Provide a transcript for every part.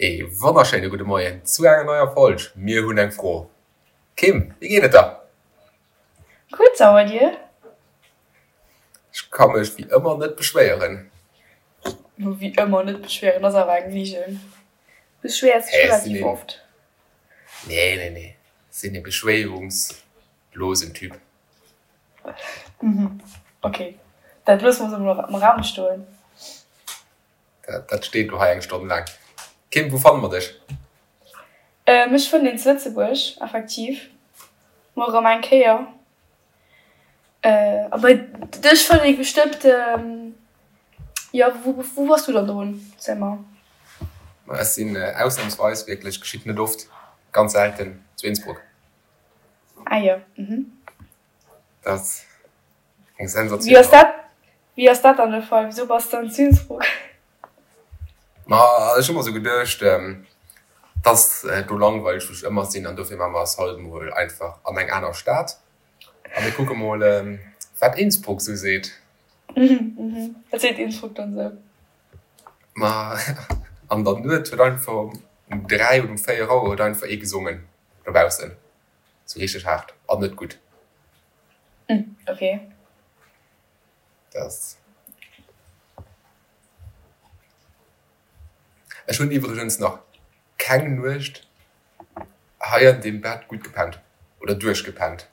Ee wonnerschéine gudde Moien zu enger neier Folg Mir hunn eng Fro. Kim, wéi geet et der? Gutt, a bei dir? Ech ka mech wéi ëmmer net beschwéieren. Wéi ëmmer net beschwéieren ass awer eng Ligen. Du beschwéiers dech relativ oft. Nee, nee, nee, ech sinn ee beschwéierungslosen Typ. Mhm, ok, dat loosse mer esou am Raum stoen. Dat steet elo hei eng Stonn laang. Kim, wou fanne mer dech? Mech fënnt een zu Lëtzebuerg, effektiv. Mol erëm eng Kéier. A bei dech fënnt ee bestëmmt, jo, wou bass du dann drun? Ziel mer. Ma ech sinn ausnamsweis, wierklech, geschitt net oft, ganz selten, zu Innsbruck. Ah jo, mhm. Dat ass eng Sensatioun. Wéi ass dat, wéi ass dat dann de Fall? Wisou bass de dann zu Innsbruck? Ma ech hu mer sou geduecht, dass do langweileg wou ech ëmmer sinn an dofir maache mer eis haut emol einfach an eng aner Stad a mir kucke mol wat Innsbruck sou seet. Mhm, wat seet Innsbruck dann sou? Ma an der Nuet huet einfach um 3 oder um 4 Auer huet einfach ee gesongen dobaussen. Sou richteg haart an net gutt. Ok. Dat. Ech hunn iwwregens nach keng Nuecht hei an deem Bett gutt gepennt oder duerchgepennt.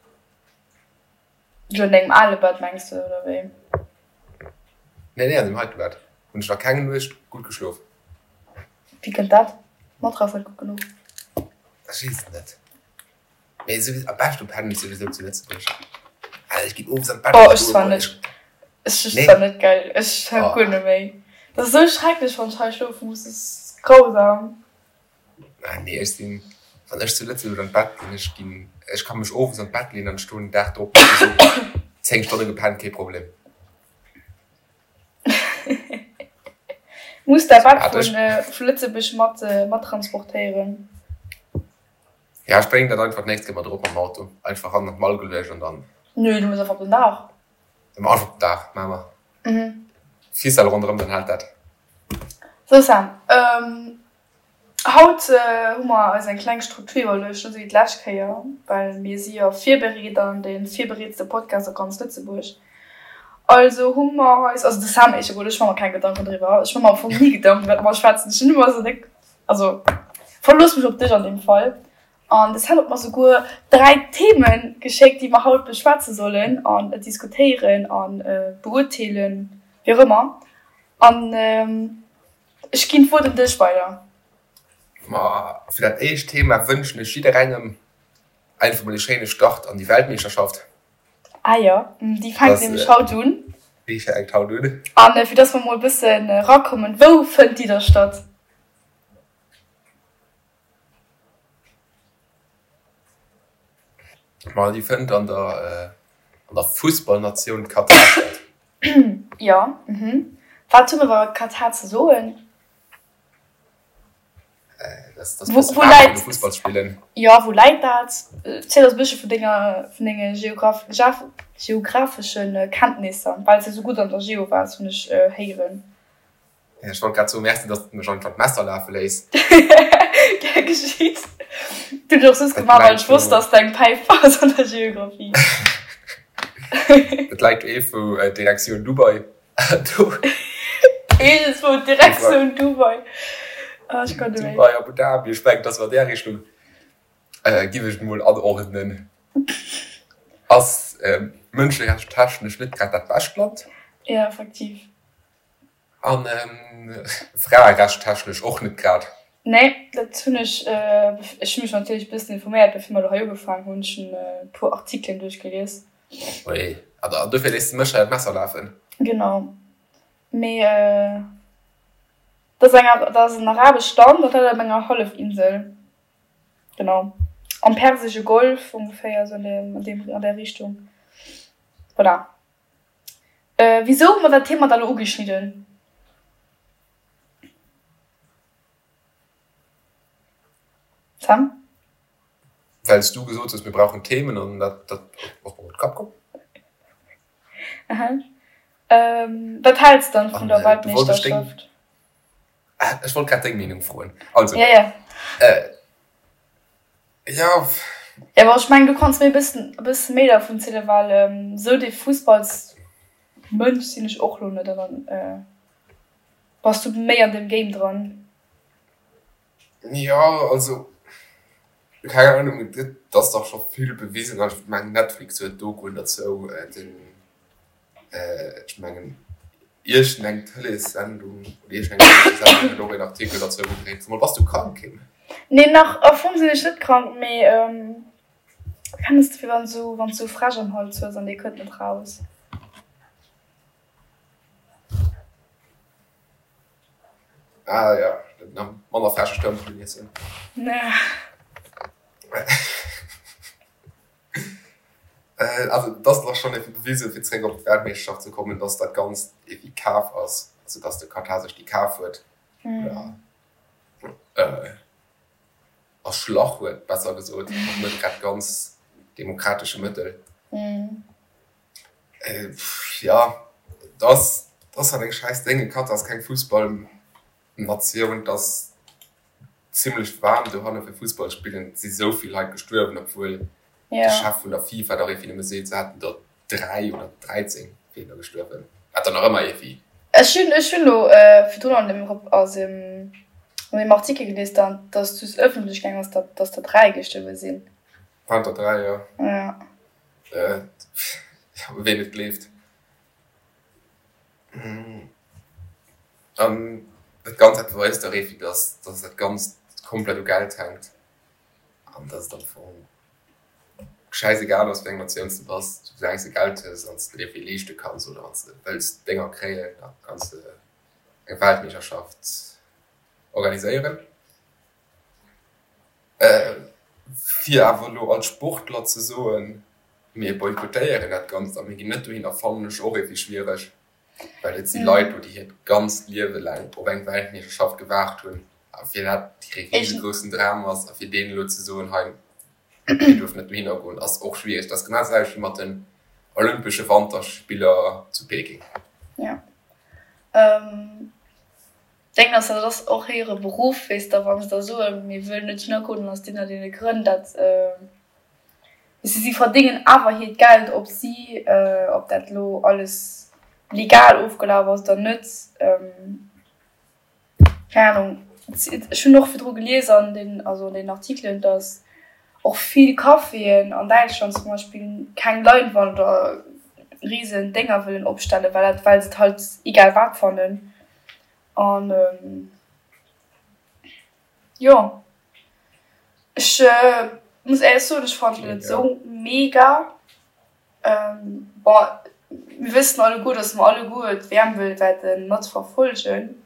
Jo, an dengem ale Bett mengs de, oder wéi? Nee, nee, an deem heite Bett hunn ech nach keng Nuecht gutt geschlof. Wéi kënnt dat? D'Matrass net gutt genuch? Ech weess et net. Mee souwisou, am beschte pennen ech souwisou zu Lëtzebuerg. Also ech ginn owes an d'Bett Oh, ech zwar net. Ech zwar net, gell. Ech hab guer net méi. Dat ass esou schrecklech, wann ech hei schlofe muss. Dat ass grausam. Ah nee, ech sinn, wann ech zu Lëtzebuerg an d'Bett ginn, ech ginn, ech ka mech owes an d'Bett leeën an ech stoen den Dag drop op esou 10 Stonne gepennt, kee Problem. Muss däi Bett vu Lëtzebuerg mat mat transportéieren. Ja, ech bréngen dat einfach d'nächst Kéier mat erop mam Auto. Einfach hannen an d'Mall geluecht an dann. Nö, du muss einfach op den Daach. Einfach op den Daach, maache mer. Ficelle ronderëm, dann hält dat. Sou Sam, haut hu mer eis eng kleng Struktur iwwerluecht, net esou wéi d'lescht Kéier, well mir si jo virbereet an dee virbereetste Podcast a ganz Lëtzebuerg. Also hu mer eis, also de Sam éischter emol, ech maache mer keng Gedanken driwwer, ech maache mer am Fong ni Gedanken iwwer wat mer schwätzen, ech hunn ëmmer esou déck, also verlooss mech op dech an deem Fall. An de Sam huet mer souguer 3 Themen geschéckt, déi mer haut beschwätze sollen an diskutéieren a beurteelen, wéi och ëmmer. An ech ginn d'Wuert un dech weider. Ma fir dat éischt Thema wënschen ech jidderengem einfach mol ee schéine Start an déi Weltmeeschterschaft. Ah jo, déi fänkt nämlech haut un. Déi fänkt haut un. An fir dass mer mol e bëssen erakommen, wou fënnt déi da statt? Ma déi fënnt an der an der Fussballnatioun Katar statt. Jo, mhm. Wat hu mer iwwer Katar ze soen? Dass dass bësse waarm an de Fussball spillen. Jo, wou läit dat? Ziel eis e bëssche vun denger vun denge geographeschen Kenntnisser, well s de esou gutt an der Geo waars, hunn ech héieren. Ech wollt grad soen, Merci, dass de mech einfach d'Messer lafe léiss. Gär geschitt. Dat hunn ech och soss gemaach, well ech wosst, dass de eng Päif bass an der Geographie. Dat läit do wou Direktioun Dubai. Iergendswou Direktioun Dubai. Ah, ech kann net méi. Dubai, Abu Dhabi, ech mengen, dass war där Richtung. Giff ech et mol anordnen. Ass mënscherechtstechnesch net grad dat bescht Land. Jo, effektiv. An fraerecht-technesch och net grad. Nee, dat hunn ech. Ech hu mech natierlech e bëssen informéiert, bevir mer elo hei ugefaangen hunn. Ech hunn e puer Artikelen duerchgelies. Ui, an dofir léiss de mech hei an d'Messer lafen? Genau. Mee dat ass eng, dat ass en arabescht Land, dat läit op enger Hallefinsel. Genau. Am Persesche Golf ongeféier, esou an deem, an där Richtung. Voilà. Wisou hu mer dat Thema da lo ugeschnidden? Sam? Well s du gesot hues, mir brauchen Themen an dat ass mer op de Kapp komm. Aha. Wat häls dann vun der Weltmeeschterschaft? Ech wollt grad deng Meenung froen. Also, Ja, ja. äh, ja. Ja, awer ech mengen, du kanns mir e bëssen, e bësse méi dervun zielen, well esou dee Fussballsmënsch sinn ech och lo net an dann äh, bass du méi an deem Game dran. Jo, also, keng Ahnung, et ass dach scho vill bewisen an ech mengen Netflix huet Dokuen derzou, den, ech mengen iergendeng Tëleessendung oder iergendeng Tëleessendung huet och een Artikel derzou gedréint. Sag mol, bass du krank, Kim? Nee, nach am Fong sinn ech net krank, mee kenns de, wéi wann s du sou Fräsch am Hals hues an dee kënnt net raus. Ah ja, manner fresche Stëmpelen iessen. Also et ass dach schonn iergendwéi bewisen, fir zeréck op d'Weltmeeschterschaft ze kommen, dass dat Ganzt iergendwéi kaf ass, also dass de Katar sech déi kaf huet oder erschlach huet, besser gesot, mat net grad ganz demokratesche Mëttel. Jo, et ass, et ass halt eng schäiss Déng. Katar ass keng Fussballnatioun, et ass zimlech waarm dohanne fir Fussball spillen. Et si sou vill Leit gestuerwen, obwuel de Chef vun der FIFA dach iergendwéi nëmme seet, se hätten der 3 oder 13 wieren der gestuerwen, wat dann nach ëmmer iergendwéi. Ech hunn, ech hunn elo virdrun an dem, also an deem Artikel gelies, datt just ëffentlech gaang ass, datt der 3 gestuerwe sinn. Waren der 3, jo. Ja. Ween et gleeft. An dat Ganzt dat beweist dach eeffi, dass dass dat Ganzt komplett u Geld hänkt an dass et am Fong schäisegal ass, wéi eng Natioun s de bass, soulaang s de Geld hues an s de dir vill leeschte kanns oder wann s de wëlls Dénger kréien, da kanns de eng Weltmeeschterschaft organiséieren. Fir awer elo als Sportler ze soen, mir boykottéieren dat Ganzt a mir ginn net dohinner, fannen ech och iergendwéi schwiereg, well et si Leit do, déi hiert ganzt Liewe laang op eng Weltmeeschterschaft gewaart hunn a fir dat hire risegroussen Dram ass a fir deenen elo ze soen, hei dir duerft net dohinner goen, ass och schwiereg. Dat ass genau dat selwecht wéi mat den Olympesche Wanterspiller zu Peking. Jo. Deng ass, dat ass och hire Beruff, weess de, wa se da soen, mir wëllen net dohinner goen, dann ass deen an deene Grënn, dat, weess de, si verdéngen awer hiert Geld, ob si, ob dat elo alles legal ofgelaf ass oder net, keng Ahnung. Ech hunn och virdru gelies an den, also an den Artikelen, datt och vill Caféen an Däitschland zum Beispill keng Leinwand oder risen Dénger wëllen opstellen, well dat, well se et halt egal wat fannen. An jo, ech muss éierlech soen, ech fannen et net esou mega. Bon, mir wëssen alleguer, datt mer alleguer d'WM wëll wäerte mat verfollegen,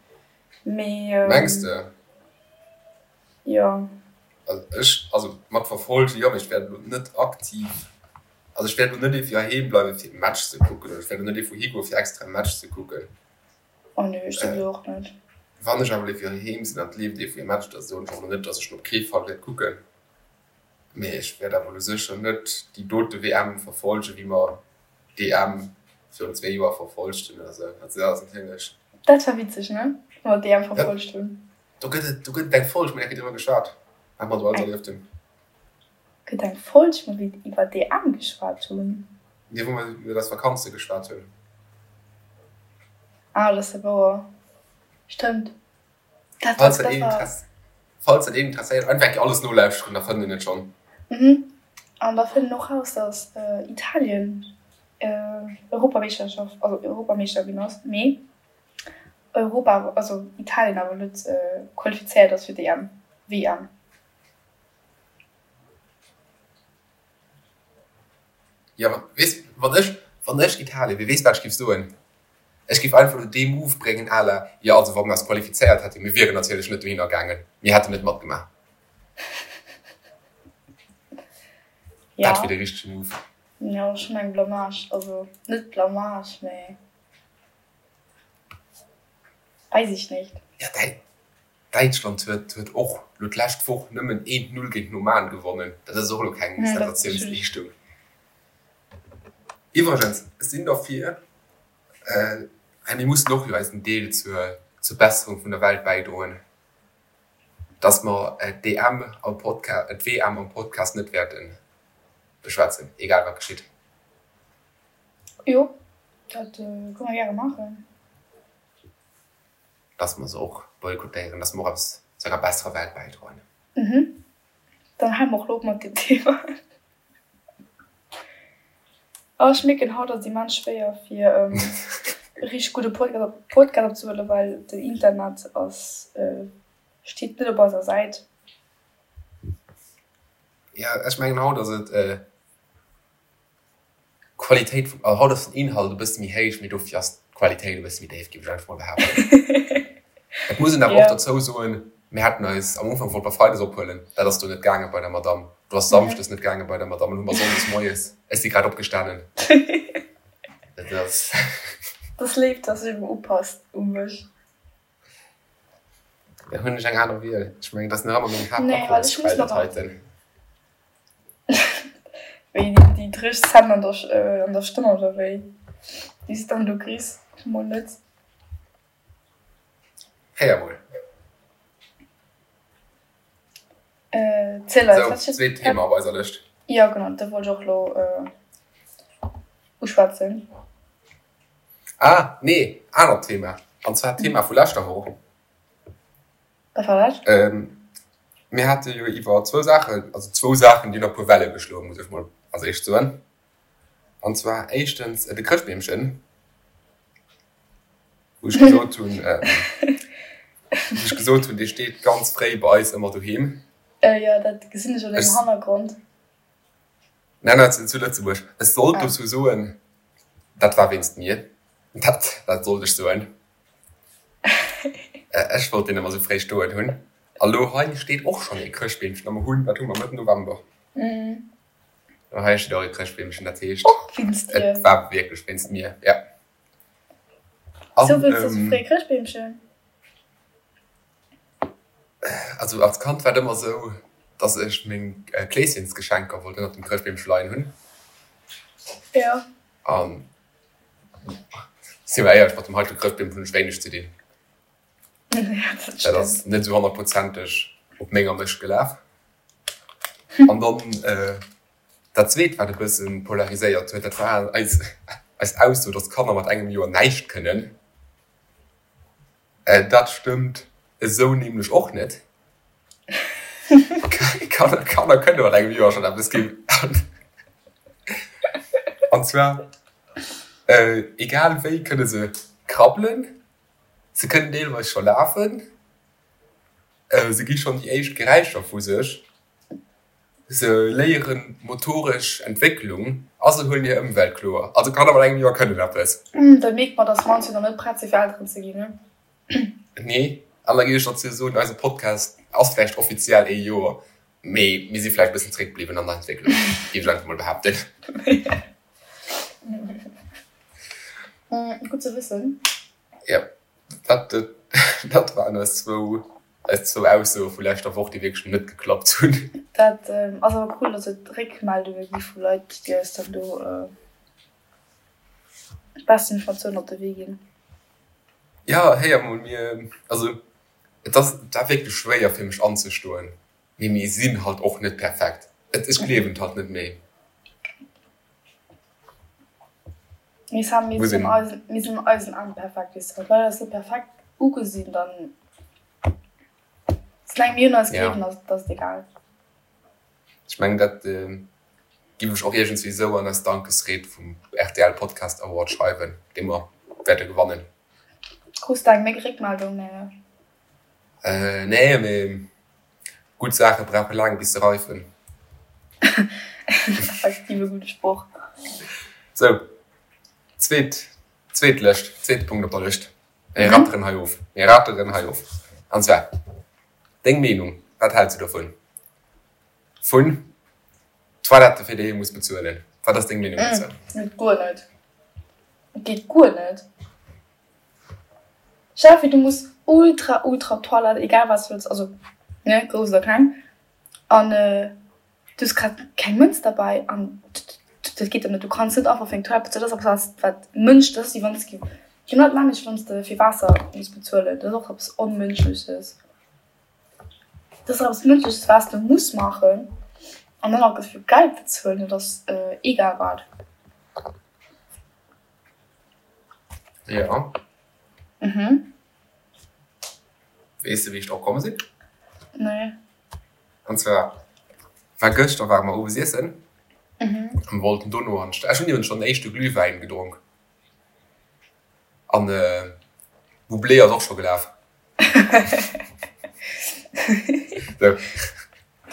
mee. Mengs de? Jo. Also ech, also mat verfollegen, jo, mee ech wäert elo net aktiv, also ech wäert elo net iergendwéi heiheem bleiwen, fir e Match ze kucken, oder ech wäert elo net iergendwou higoen, fir extra e Match ze kucken. Oh nee, ech souwisou och net. Wann ech awer iergendwéi heiheem sinn an et leeft iergendwéi e Match, da soen ech och elo net, dass ech en op kee Fall wäert kucken. Mee ech wäert awer elo sécher net déi dote WM verfollegen, wéi mer d'EM virun zwee Joer verfollegt hunn oder sou. Also dat ass natierlech. Dat war witzeg, ne? Wou mer d'EM verfollegt hunn. Do gëtt et, do gëtt et eng Folg, mir hu driwwer geschwat, wat mer do alles erlieft hunn. Gëtt eng Folg, wou mir iwwer d'EM geschwat hunn? Nee, wou mer iwwer eis Vakanze geschwat hunn. Ah, dat ass jo wouer. Stëmmt. Dat war, dat war. Falls dat een interesséiert, einfach eng Kéier alles nolauschteren, da fënnt een et schonn. Mhm. An da fënnt een och raus, dass Italien Europameeschterschaft, also Europameeschter ginn ass, mee Europa, also Italien awer net qualifizéiert ass fir d'EM, WM. Jo, ma weess, wann ech, wann ech Italien wier, weess wat ech géif soen? Ech géif einfach elo dee Move bréngen à la, jo also wa mir eis qualifizéiert hätten, mir wieren natierlech net dohinner gaangen, mir hätten net matgemaach. Ja. Dat wier de richtege Move. Jo, schonn eng Blamage, also net Blamage, mee Weiß ich nicht. Ja, Däitschland huet huet och lo d'lescht Woch nëmmen eent Null géint den Oman gewonnen. Dat ass och elo keng Sensatiounsleeschtung. Iwwregens, ech sinn derfir, well mir mussen och jo eisen Deel zur. Zur Besserung vun der Welt bäidroen, dass mer d'EM am Podca-, d'WM am Podcast net wäerte beschwätzen, egal wat geschitt. Jo, dat kënne mer gäre maachen. Dass mer se och boykottéieren, dass mer och eppes zu enger besserer Welt bäidroen. Mhm. Dann hale mer och elo op mat deem Thema. Oh, ech mierken, haut ass et immens schwéier fir e richteg gudde Podcast opzehuelen, well den Internet ass, steet net op eiser Säit. Jo, ech mengen haut ass et D'Qualitéit vum, also haut ass den Inhalt e bësse méi héich, mee dofir ass d'Qualitéit e bësse méi déif, géif ech einfach mol behaapten. Et muss een awer och dozou soen, mir haten eis am Ufank wollt mer freides ophuelen, dat ass do net gaange bei der Madamm, do ass samschdes net gaange bei der Madamm, an hu mer sonndes moies, ech si grad opgestanen, dat ass. Dat ass léif, dass de upasst u mech. Da hunn ech eng aner Wiel. Ech mengen, dat ass nach ëmmer meng Haaptakommesquell, dat heiten. Wéi déi dréch Zänn an der, an der Stëmm oder wéi? Déi s dann do kriss? Mol net. Héier mol. Ziel eis, wat steet. Zweet Thema op eiser Lëscht. Jo, genau, dat wollt ech och elo uschwätzen. Ah, nee, anert Thema, an zwar d'Thema vu leschter Woch. Wat war dat? Mir hate jo iwwer zwou Saachen, also zwou Saachen, déi hunn e puer Welle geschloen, muss ech mol als éischt soen. An zwar éischtens de Chrëschtbeemchen, wou ech gesot hunn, wou ech gesot hunn, dee steet ganz fréi bei eis ëmmer doheem. Jo, dat gesinn ech an dengem Hannergrond. Nein, nein, zu Lëtzebuerg. Ech sollt dozou soen, dat war wéinst mir. Dat, dat sollt ech soen. Ech wollt deen ëmmer sou fréi stoen hunn. A lo hei steet och schonn ee Chrëschtbeemchen a mer hunn, wat hu mer, Mëtt November. A hei steet och ee Chrëschtbeemchen, dat heescht, Och wéinst dir? et war wierklech wéinst mir, ja. Sou wëlls de sou fréi Chrëschtbeemchen? Also als Kand war et ëmmer esou, dass ech meng Kleeschensgeschenker wollt ënnert dem Chrëschtbeemche leien hunn. Jo. An si mer éierlech, mat dem heitege Chrëschtbeem hunn ech wéineg ze dinn. Ja, dat Dat stëmmt. ass net esou honnertprozenteg op menger Mëscht gelaf. An dann dat zweet, wat e bësse polariséiert huet, dat war eis eis Ausso, dass Kanner mat engem Joer näischt kënnen. Dat stëmmt esou nämlech och net. Kanner kënne mat engem Joer schonn eppes ginn. An zwar egal wéi kënne se krabbelen, se kënnen deelweis scho lafen, se gi schonn déi éischt Geräischer vu sech. Se léieren motoresch Entwécklung a se huelen hir Ëmwelt kloer. Also Kanner mat engem Joer kënnen eppes. Da mierkt mer, dass mer ons jo nach net prett si fir Elteren ze ginn, ne? Nee, an da géif ech dozou soen, eise Podcast ass vläicht offiziell ee Joer, mee mir si vläicht e bëssen zréck bliwwen an der Entwécklung, géif ech einfach mol behaapten. Gutt ze wëssen. Jo, dat, dat waren eis zwou, eis zwou Aussoe vu leschter Woch, déi wierklech net geklappt hunn. Dat ass awer cool, dass et Réckmeldunge gi vu Leit, déi eis dann do d'besst Informatiounen op de Wee ginn. Jo, héier mol, mir, also et ass, et war wierklech schwéier fir mech anzestoen, mee mir sinn halt och net perfekt. Et, ech gleewen et halt net méi. Mee Sam, mir sinn an eisen, mir sinn an eisen Aen perfekt, weess de. Wann d'Leit eis net perfekt ugesinn, dann, soulaang mir un eis gleewen, ass, ass et egal. Ech mengen, dat giff ech och iergendswéi esou an eis Dankesried vum rtl Podcast Award schreiwen, dee mer wäerte gewannen. Krus de eng méi Réckmeldung? Nee, ne? Nee, mee gutt Saache brauche laang bis se reifen. Effektiv e gudde Sproch. Sou, zweet, zweet Lëscht, zweete Punkt op der Lëscht. Mir ratteren hei of, mir ratteren hei of. An zwar, deng Meenung, wat häls du dovun, vun Toilette fir déi ee muss bezuelen? Wat ass deng Meenung dozou? Geet guer net. Geet guer net. Stell vir du muss ultra ultra op d'Toilette, egal wat s wëlls, also ne grouss oder kleng, an du hues grad keng Mënz derbäi an dat geet dann net. Du kanns net einfach fir eng Toilette bezuelen, dat ass eppes wat wat Mënsch, dat ass wéi wann s du. Genau dat nämmlecht wann s de fir Waasser muss bezuelen, dat ass och eppes Onmënschleches. Dat ass eppes Mënschleches wat s de muss maachen an dann nach dofir Geld bezuelen, dat ass egal wat. Jo. Mhm. Weess de wéi ech drop komm sinn? Nee. An zwar war gëschter ware mer owes iessen an wollten dono an d'Stad. Ech hunn iwwregens schonn den éischte Glühwäin gedronk an Bublé ass och scho gelaf. Sou,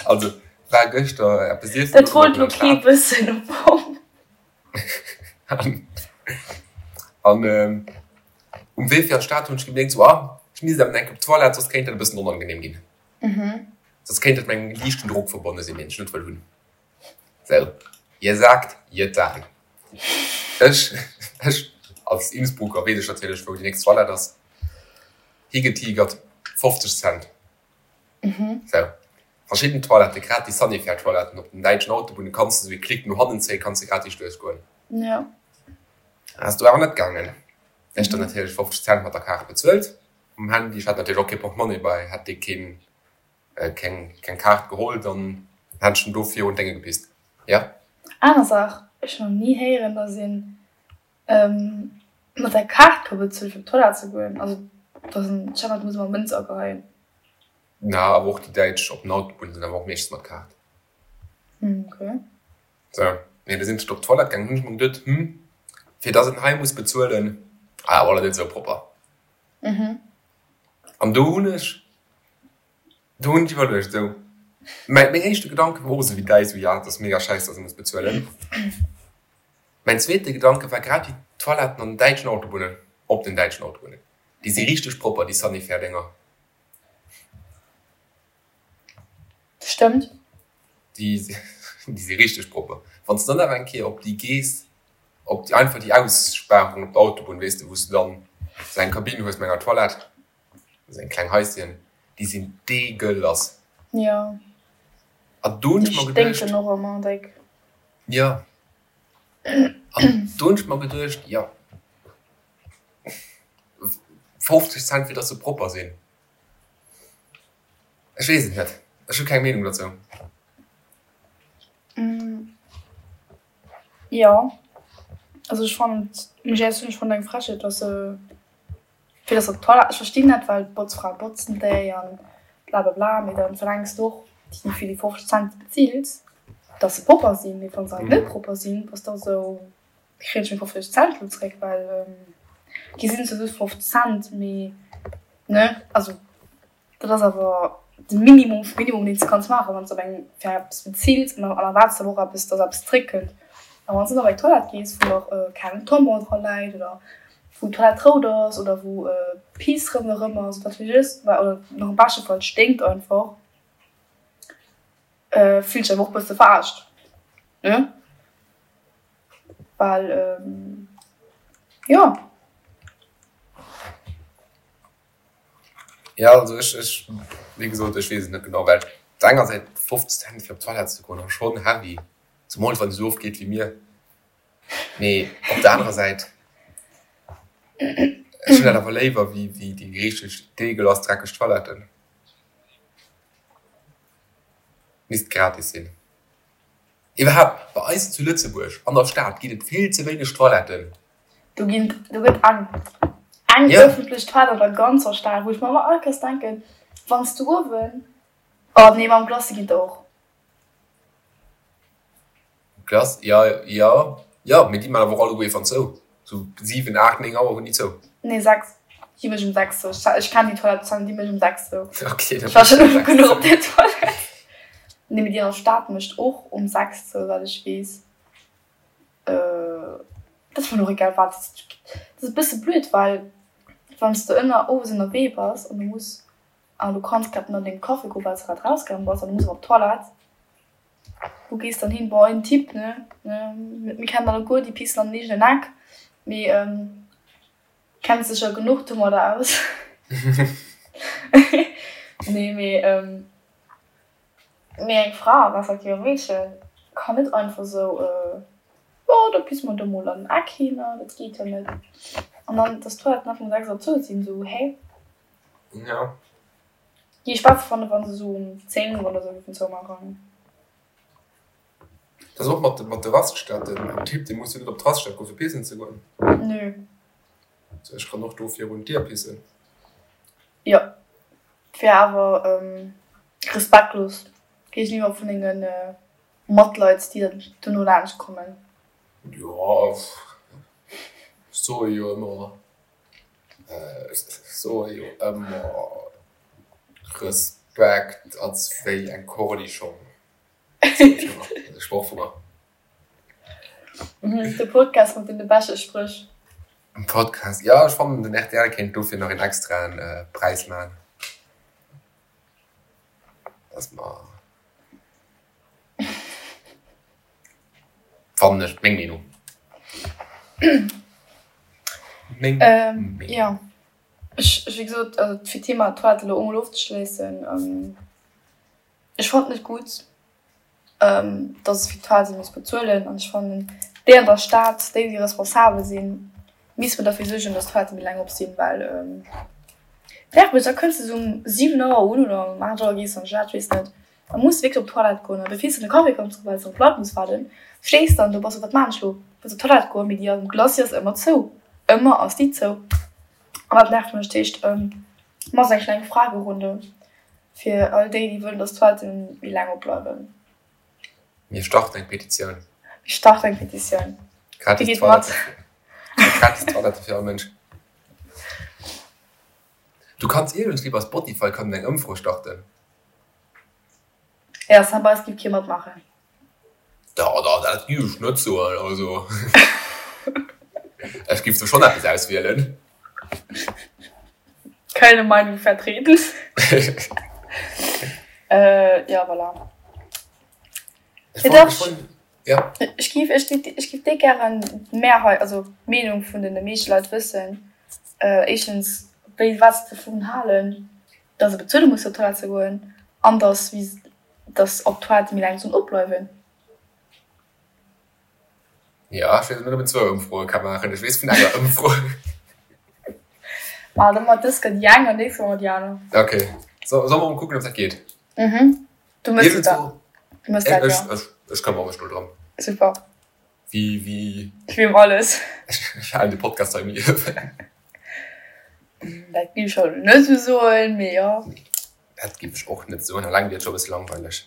also war gëschter eppes iessen. Dat wollt lo kee wëssen am Fong. An um Wee fir an d'Stad hunn ech gemierkt, sou, ah, ech misst awer eng Kéier op d'Toilette, soss kéint dat e bëssen onangenehm ginn. Soss kéint dat mat engem liichten Drock verbonne sinn, deen ech net wëll hunn. Sou, jesagt, jetan. Ech, ech als Innsbrucker weess ech natierlech, wou déi nächst Toilette ass. Higetigert, 50 Cent. Sou, verschidden Toiletten, grad déi Sanifair-Toiletten op den däitschen Autobunne kanns de sou ee Klick no hannen zéien, kanns de gratis duerchgoen. Jo. Ass do awer net gaangen. Ech dann natierlech 50 Cent mat der Kaart bezuelt um Handy. Ech hat natierlech och kee Portemonnaie bei, hätt dee keen, keng, keng Kaart geholl, dann hätt ech en do virun d'Dénge gepisst. Jo. Aner Saach, ech hunn nach ni héieren, dass een Mat der Kaart ka bezuelen fir op d'Toilette ze goen. Also dat ass en Schema, do muss ëmmer Mënz ageheien. Na, awer och déi Däitsch op den Autobunne sinn awer och meeschtens mat Kaart. Ok. Sou, mee du sinn ech op d'Toilette gaangen, hunn ech mer geduet, hm, fir dass een hei muss bezuelen, ah, awer net esou propper. An do hunn ech, do hunn ech iwwerluecht, esou, mäi, meng éischte Gedanke war och esou wéi däi, esou, ja, dat ass mega schäiss, dass ee muss bezuelen. Mäin zweete Gedanke war grad déi Toiletten an den däitschen Autobunnen, op den däitschen Autobunnen, déi si richteg propper, déi Sanifair-Dénger. Stëmmt. Déi si richteg propper. Wann s de dann awer eng Kéier op déi gees, op déi einfach déi Aussparung op der Autobunn, weess de, wou s de dann esou eng Kabinn hues mat enger Toilette, esou eng kleng Haischen, déi sinn deegelass. Jo. An do hunn ech Déi mer geduecht. sténken och ëmmer déck. Jo. An do hunn ech mer geduecht, jo, 50 Cent fir dass se propper sinn. Ech weess et net, ech hu keng Meenung dozou. Jo, also ech fannen et, muss ech éierlech soen, ech fannen et eng Frechheet, dass se Fir dass op d'Toilette, ech verstinn dat, well d'Botzfrae botzen déi an blablabla, mee dann verlaangs de och déi fir déi 50 Cent bezills, dass se propper sinn. Mee wann se halt net propper sinn, bass de och esou, kréien ech meng 50 Cent elo zréck? Well gi sinn zwar just 50 Cent, mee ne, also. Dat ass awer de Minimum vum Minimum, deen s de kanns maachen, wann s de op eng fir eppes bezills an dann erwaards de awer och eppes, dass eppes zréckkënnt. A wann s de dann op eng Toilette gees, wou nach keng Tampon dra läit oder wou d'Toilette rout ass oder wou Piss ronderëm ass oder wat weess ech, oder nach am beschte Fall et sténkt einfach, fills dech awer och e bësse verarscht, ne? Well, jo. Ja also ech ech wéi gesot ech weess et net genau, well op der enger Säit 50 Cent fir op d'Toilette ze goen ass schonn heavy, zemools wann ee sou oft geet wéi mir, mee op der anerer Säit ech hunn dat awer léiwer wéi wéi déi richteg deegelass dreckeg Toiletten. Misst gratis sinn. Iwwerhaapt bei eis zu Lëtzebuerg an der Stad ginn et vill ze wéineg Toiletten. Do ginn, do gëtt eng, eng Ja. ëffentlech Toilette an der ganzer Stad, wou ech mer ëmmer all Kéiers denken, wann s du uewen, oh nee, mam Glace ginn der och. Glace, ja, ja, ja, mee déi man awer och alleguer ierfan zou. Sou 7, 8, 9 Auer hunn déi zou. Nee, 6. Déi mécht um 6 zou. Ech kenn déi Toilette, Sam, déi mécht um 6 zou. Okay, Ech war schonn oft genuch op där Toilette. Nee, mee déi an der Stad mécht och um 6 zou, wat ech weess. Dat ass mer och egal wat. Dat ass e bësse blöd, well wann s de ënner owes ënnerwee bass an du muss an du kanns grad net an dengem Café goen, well s de grad rausgaange bass an du muss awer op d'Toilette, wou gees dann hin? Bon, en Typ, ne, mir kennen alleguer déi pissen an den eegenen Eck, mee kennt sech jo genuch domadder aus. Nee, mee. Mee eng Fra, respektiv e Meedchen, kann net einfach sou, jo, da pisse mer do mol an den Eck hin, dat geet jo net. An dann, dass d'Toiletten nach um 6 Auer zou sinn, sou, hä? Ja. Géif ech besser fannen, wa se sou um 10 oder sou géifen zoumaachen. Dat ass och mat mat de Raststätten. En Typ, dee muss jo net op d'Raststätt goen, fir pissen ze goen. Nö. So, ech kann och do virun d'Dier pissen. Jo, wär awer respektlos géigeniwwer vun denge Matleit, déi dann dono laanscht kommen. Jo, ech soe jo ëmmer, ech soe jo ëmmer, Respekt ass wéi eng Cornischong. E Sproch vu mer. De Podcast mat deene beschte Spréch. En Podcast, jo, ech fannen den rtl kéint dofir nach een extraen Präis maachen. Dass mer, fannen ech, meng Meenung. Meng Meenung. Jo, ech, wéi gesot, also fir d'Thema Toilette elo emol ofzeschléissen, Ech fannen et net gutt, dass et fir d'Toilette muss bezuelen an ech fannen déi an der Stad, déi déi responsabel sinn, missten derfir suergen, dass d'Toiletten méi laang op sinn, well nervt mech, da kënns de sou um 7 Auer un oder um 8 Auer gees de an d'Stad, ech weess net, da muss de wierklech op d'Toilette goen an bevir s de de Café kanns drénken, well s de op Leit muss waarden, stees dann do, bass sou, wat maan ech lo, wëlls op d'Toilette goen, mee déi am Glacis ass ëmmer zou, ëmmer ass déi zou an dat nervt mech. Dat heescht, maass eng kleng Fragerunde. Fir all déi, déi wëllen, dass d'Toiletten méi laang opbleiwen. Mir starten eng Petitioun. Mir starten eng Petitioun. Gratis Wie geet mat? Gratis Toilette fir all Mënsch. Du kanns iergendwéi bei Spotify kann een eng Ëmfro starten. Ja, Sam, bei eis giff kee matmaachen. Da, da, dat giff ech net soen. Also, ech giff do schonn eppes auswielen. Keine Meinung vertreten. Ja, voilà. Ech wollt, ech wollt, ja. Ech giff, ech giff, ech giff déck gären d'Mehrheit, also d'Meenung vun den meeschte Leit wëssen. Éischtens, wéi, wat se dovun halen, dass e bezuele muss fir op d'Toilette ze goen an dass, wéi Dass op d'Toilette méi laang sollen opbleiwen. Jo, ech weess net ob een zwou Ëmfroe ka maachen. Ech weess vun enger Ëmfro. Ma da mat dës gëtt déi eng an nächst Woch déi aner. Ok, so solle mer mol kucken ob dat geet. Mhm, du mëss et da. Du mëss dat, jo. Ech, ech këmmere mech do drëm. Super. Wéi, wéi. Wéi ëm alles. Ech halen de Podcast hei um Liewen. Dat géif ech elo net esou soen, mee jo. Dat giff ech och net soen, alleng wier et scho bësse langweileg.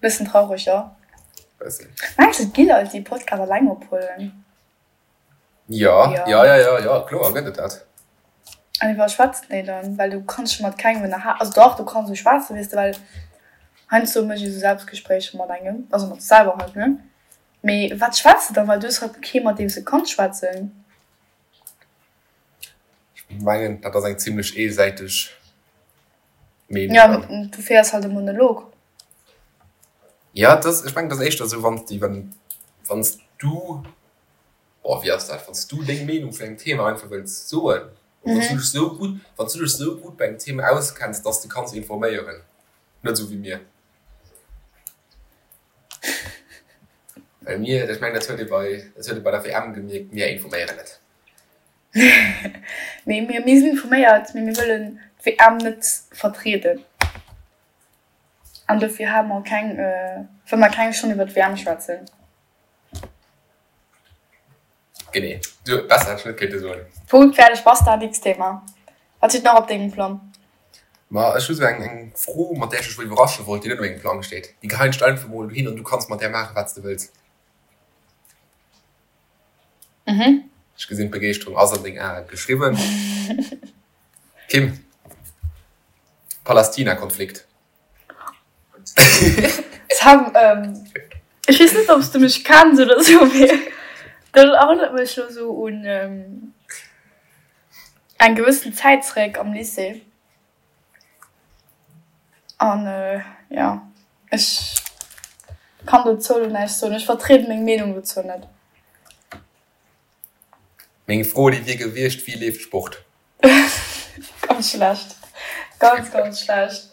Bëssen traureg, jo. Bëssen. Mengs de et gi Leit déi Podcast alleng ophuelen? Jo, jo, jo, jo, jo, kloer gëtt et dat. An iwwer schwätzen déi dann? Well du kanns scho mat kengem ënnerha, also dach du kanns esou schwätzen, weess de, well heiansdo mécht ee sou Selbstgespréicher mat engem, also mat sech selwer halt, ne? Mee wat schwätz de dann? Well du hues halt kee mat deem s de kanns schwätzen. Ech mengen, dat ass eng zimlech eesäiteg Meenung. Ja, du féiers halt e Monolog. Ja, dat, ech mengen, dat ass éischter esou, wann s de, wann s du, oh, wéi ass dat, wann s du deng Meenung vun engem Thema einfach wëlls soen, wann s du dech esou gutt, wann s du dech esou gutt bei engem Thema auskenns, dass de kanns informéieren, net esou wéi mir. Well mir, ech mengen, dat huet ee bei, dat huet ee bei der WM gemierkt, mir informéieren net. Mee mir, mir sinn informéiert, mee mir wëllen d'WM net vertrieden. An dofir hale mer keng, wëlle mer keng Stonn iwwer d'WM schwätzen. Genee, du, besser hätt ech net kéinte soen. Punkt, fäerdeg, basta, nächst Thema. Wat steet nach op dengem Plang? Ma ech hu sou eng, eng Fro, mat där ech dech wëll iwwerrasche wollt, déi net op mengem Plang steet. Déi geheien ech der einfach mol dohin an du kanns mat där maachen, wat s de wëlls. Mhm. Ech gesinn, d'Begeeschterung ass an deng Ae geschriwwen. Kim, Palästina-Konflikt. Sam, ech weess net, ob s du mech kenns oder sou, mee dat erënnert mech lo sou un eng gewëssen Zäit zeréck am Lycée. An jo, ech kann dozou lo näischt soen. Ech vertrieden meng Meenung dozou net. Meng Fro déi wier gewiescht, Wéi leeft Sport? Ganz schlecht. Ganz, ganz schlecht.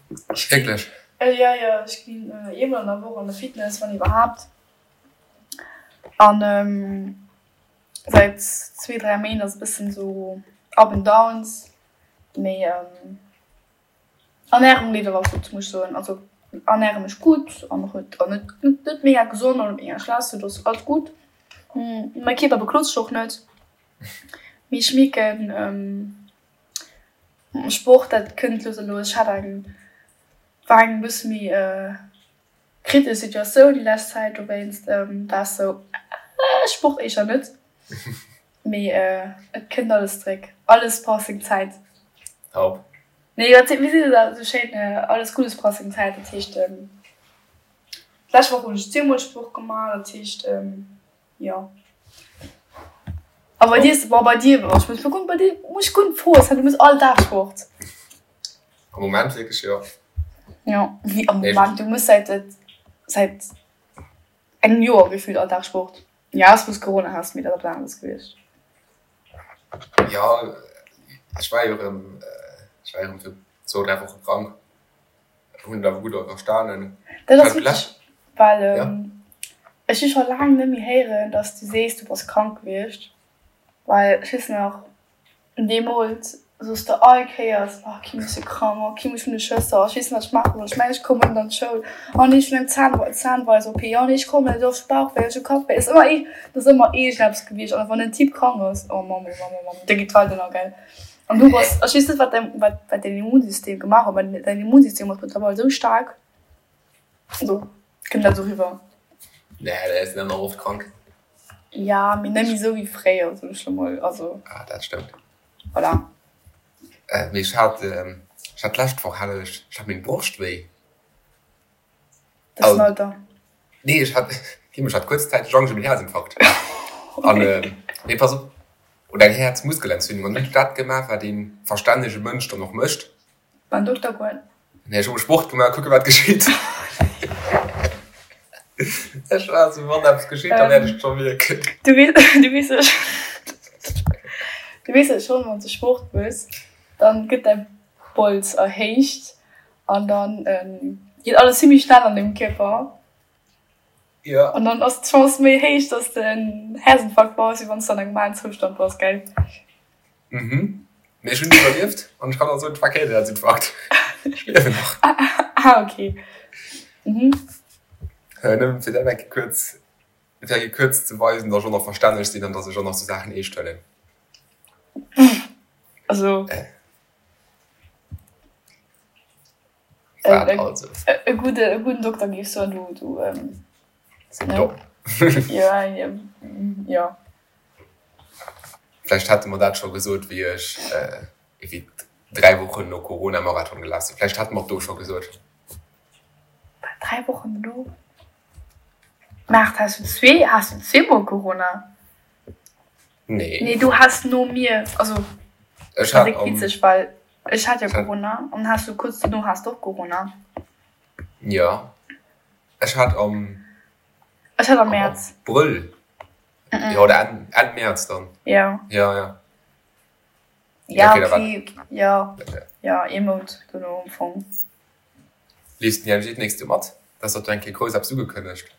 Wierklech? Jo, jo, ech ginn eemol an der Woch an de Fitness, wann iwwerhaapt. An. Säit zwee, 3 Méint ass e bëssen esou up and downs, mee Ernärung leeft awer gutt, muss ech soen. Also ernäre mech gutt an och net an net net mega gesond an net mega schlecht, sou dass alles gutt. Mäi Kierper beklot sech och net, mee ech mierken Sport dat kënnt lues a lues. Ech hat eng war eng bësse méi Kritesch Situatioun déi lescht Zäit, dowéinst war ech sou, Sport éischter net, mee et kënnt alles zréck, alles brauch seng Zäit. Top. Nee, wat wéi seet een dat esou schéin, alles Guddes brauch seng Zäit, dat heescht d'lescht Woch hunn ech zweemol Sport gemaach, dat heescht jo. A bei dir, bon bei dir, ech muss kucken, bei dir muss ech guer net froen, du méchs all Dag Sport. Am Moment wierklech jo. Jo, wéi am Moment? Du muss säit säit engem Joer gefillt all Dag Sport. Jo, ausser wou s Corona has, mee dat ass eppes aneres gewiescht. Jo, ech war jo erëm, ech war jo erëm fir zwou, dräi Woche krank, hunn et awer gutt iwwerstanen. Dat ass witzeg, well ech hu scho laang net méi héieren, datt s du sees, du bass krank gewiescht, well ech weess nach, Deemools soos de all Kéiers, oh Kim ech si krank, oh Kim ech hunn e Schësser, ech weess net wat ech maache soll, ech mengen ech kommen net an d'Schoul, oh nee ech hunn eng Zahn Zahnweis-OP, oh nee ech kommen net, oh ech hu Bauchwéi, ech hu Kappwéi, et ass ëmmer ee et ass ëmmer iergendeppes gewiescht an wann en Typ krank ass, oh Mamm oh Mamm oh Mamm, da geet d'Welt ënner gell. An du bass, ech weess net wat däin wat wat däin Immunsystem gemaach huet, mä däin Immunsystem ass mëttlerweil esou staark, also kënnt dat esou riwwer. Nee, dat ass net oft krank. Ja, mee net méi esou wéi fréier, soen ech lo mol. Also. Ah, dat stëmmt. Voilà. Mee ech hat, ech hat d'lescht Woch hat ech, ech hat meng Broscht wéi. Dat ass den Alter. Nee, ech hat, ech hat kuerzzäiteg Angscht ëm en Häerzinfarkt. An, nee, pass op, oder eng Häerzmuskelentzündung. An hunn ech dat gemaach, wat ee verstännege Mënsch dann och mécht. Beim Dokter goen? Nee, ech hu Sport gemaach, kucke wat geschitt. Ech war esou, wann eppes geschitt, da wäert ech et scho mierken. Du weess, du weess du weess jo schonn, wann s de Sport méchs, dann gëtt däi Bols erhéicht an dann geet alles zimmlech schnell an dengem Kierper. Jo. An dann ass d'Chance méi héich, dass de en Häerzinfarkt baus, wéi wann s de an engem normalen Zoustand bass, gell? Mhm. Mee ech hunn iwwerlieft an ech kann och soen, et war keen Häerzinfarkt. Ech liewen nach. Ah, okay. Mhm. Nëmmen fir dat eng Kéier kuerz, fir eng Kéier kuerz ze weisen, datt ech och nach verstänneg sinn an datt ech och nach sou Saachen eescht huelen. Also. Wat also? E gudde, e gudden Dokter géif soen, du, du. Sinn domm. Ja, ja. Vläicht hätte mer dat scho gesot, wéi ech ewéi 3 Wochen no Corona Marathon gelaf sinn. Vläicht hätte mer et do scho gesot. Wat, 3 Wochen dono? Maart, has du zwee, has du zweemol Corona? Nee. Nee, du has no mir, also Ech dat hat ass am, witzeg, well ech hat jo ech hat, Corona an has du kuerz dono has du och Corona. jo, ech hat am, Ech hat am am Mäerz. Abrëll Jo, oder Enn, Enn Mäerz dann. Ja. Ja, ja. Ja, okay, da war. okay, ja. Ja, ee Mount dono am Fong. Leefs den IMG d'nächst Joer mat? Dat ass dach eng Kéier grouss eppes ugekënnegt.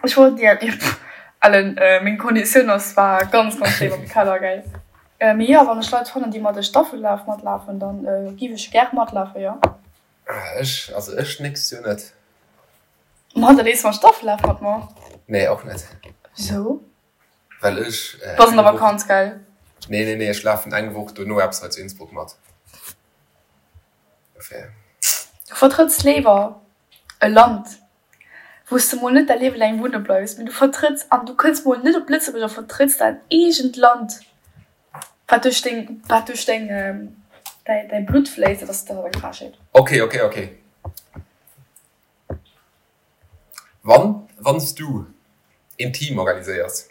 Ech wollt, ja, Ellen, meng Konditioun ass zwar ganz, ganz schéin am Keller, gell. Mee jo, wann ech Leit fannen, déi mat de Staffellaf matlafen, dann giff ech gär matlafen, jo. Ech, also ech d'nächst Joer net. Ma da leefs mam Staffellaf mat mer. Nee, och net. Wisou? Well ech. Bass an der Vakanz, gell? Nee, nee, nee, ech lafen eng Woch dono eppes hei zu Innsbruck mat. Dofir. Du vertrëtts léiwer e Land, wou s de mol net däi Liewe laang wunne bleifs, mee du vertrëtts, an du kënns mol net op Lëtzebuerg a vertrëtts däin eegent Land, wat duerch deng, wat duerch deng, däi, däi Blutt fléisst. Dat ass, dat ass eng Frechheet. Okay, okay, okay. Wann wann s du een Team organiséiers,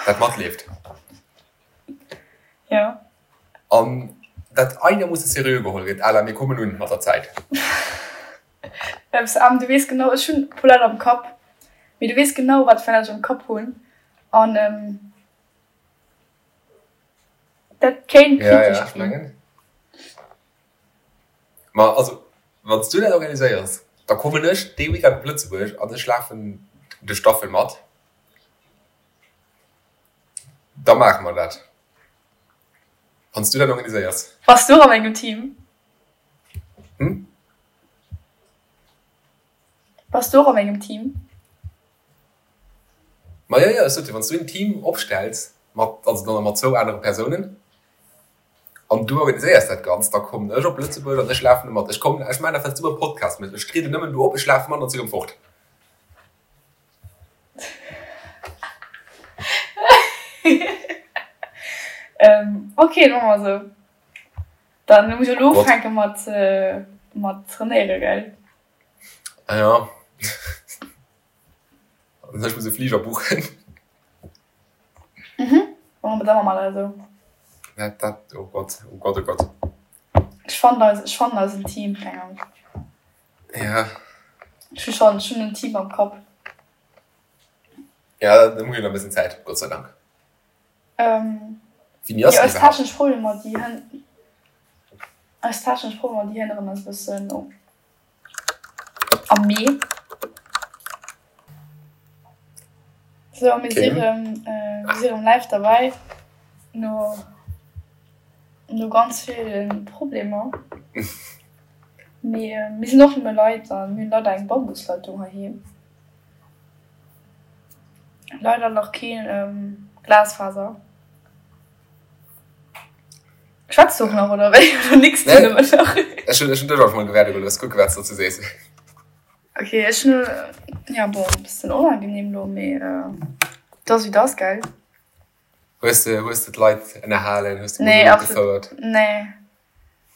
dat matleeft. Jo. An dat einermoosse seriö geholl gëtt, à la mir kommen un mat der Zäit. Eppes, du weess genau, ech hunn e puer Leit am Kapp, mee du weess genau, wat fir Leit ech am Kapp hunn. An dat kéint Ja, ja, kritesch ech ginn. mengen. Ma also, wann s du dat organiséiers, da kommen ech dee Weekend op Lëtzebuerg an ech lafen de Staffel mat. Da maache mer dat. Wann s du dat organiséiers. Bass du och a mengem Team? Hm? Bass du och a mengem Team? Ma jo, jo, ech sot jo, wann s du en Team opstells mat, also dann mat zwou anere Persounen, an du organiséiers dat Ganzt, da kommen ech op Lëtzebuerg an ech lafen do mat. Ech kommen, ech maachen dat, wat s du beim Podcast méchs, ech trieden nëmmen do op, ech lafe mat an si rëm fort. Ok, da maache mer esou. Dann muss ech elo ufänke mat mat trainéiere, gell? Ah ja. An ech muss e Fliger buchen. Mhm, da maache mer dat esou. Dat, dat, oh Gott, oh Gott, oh Gott. Ech fannen eis, ech fannen eisen Team, keng Angscht. Ja. Ech hu schonn, ech hunn en Team am Kapp. Ja, da hu jo nach e bëssen Zäit, Gott sei Dank. Ähm, Wéini ass jo, déi eis iwwerhaapt? technesch Problemer, déi hënn, eis technesch Problemer, déi hënneren eis e bëssen am Mee. Sou, mir si Okay. rëm, mir si rëm live derbäi no, no ganz ville Problemer. Mee mir sinn och nëmme Leit a mir hunn leider eng Bambusleitung heiheem. Leider nach keen Glasfaser. Schwätz du och nach oder wéi? Oder nicks du nëmmen nach? Ech hunn dech einfach mol gewäerde gelooss. Kucke wat s de dozou sees. Ok, ech hunn, ja bon, e bëssen onangenehm lo, mee et ass wéi et ass, gell? Hues de, hues de d'Leit ënnerhalen? Hues de Nee, Monolog absolut, gefouert? nee.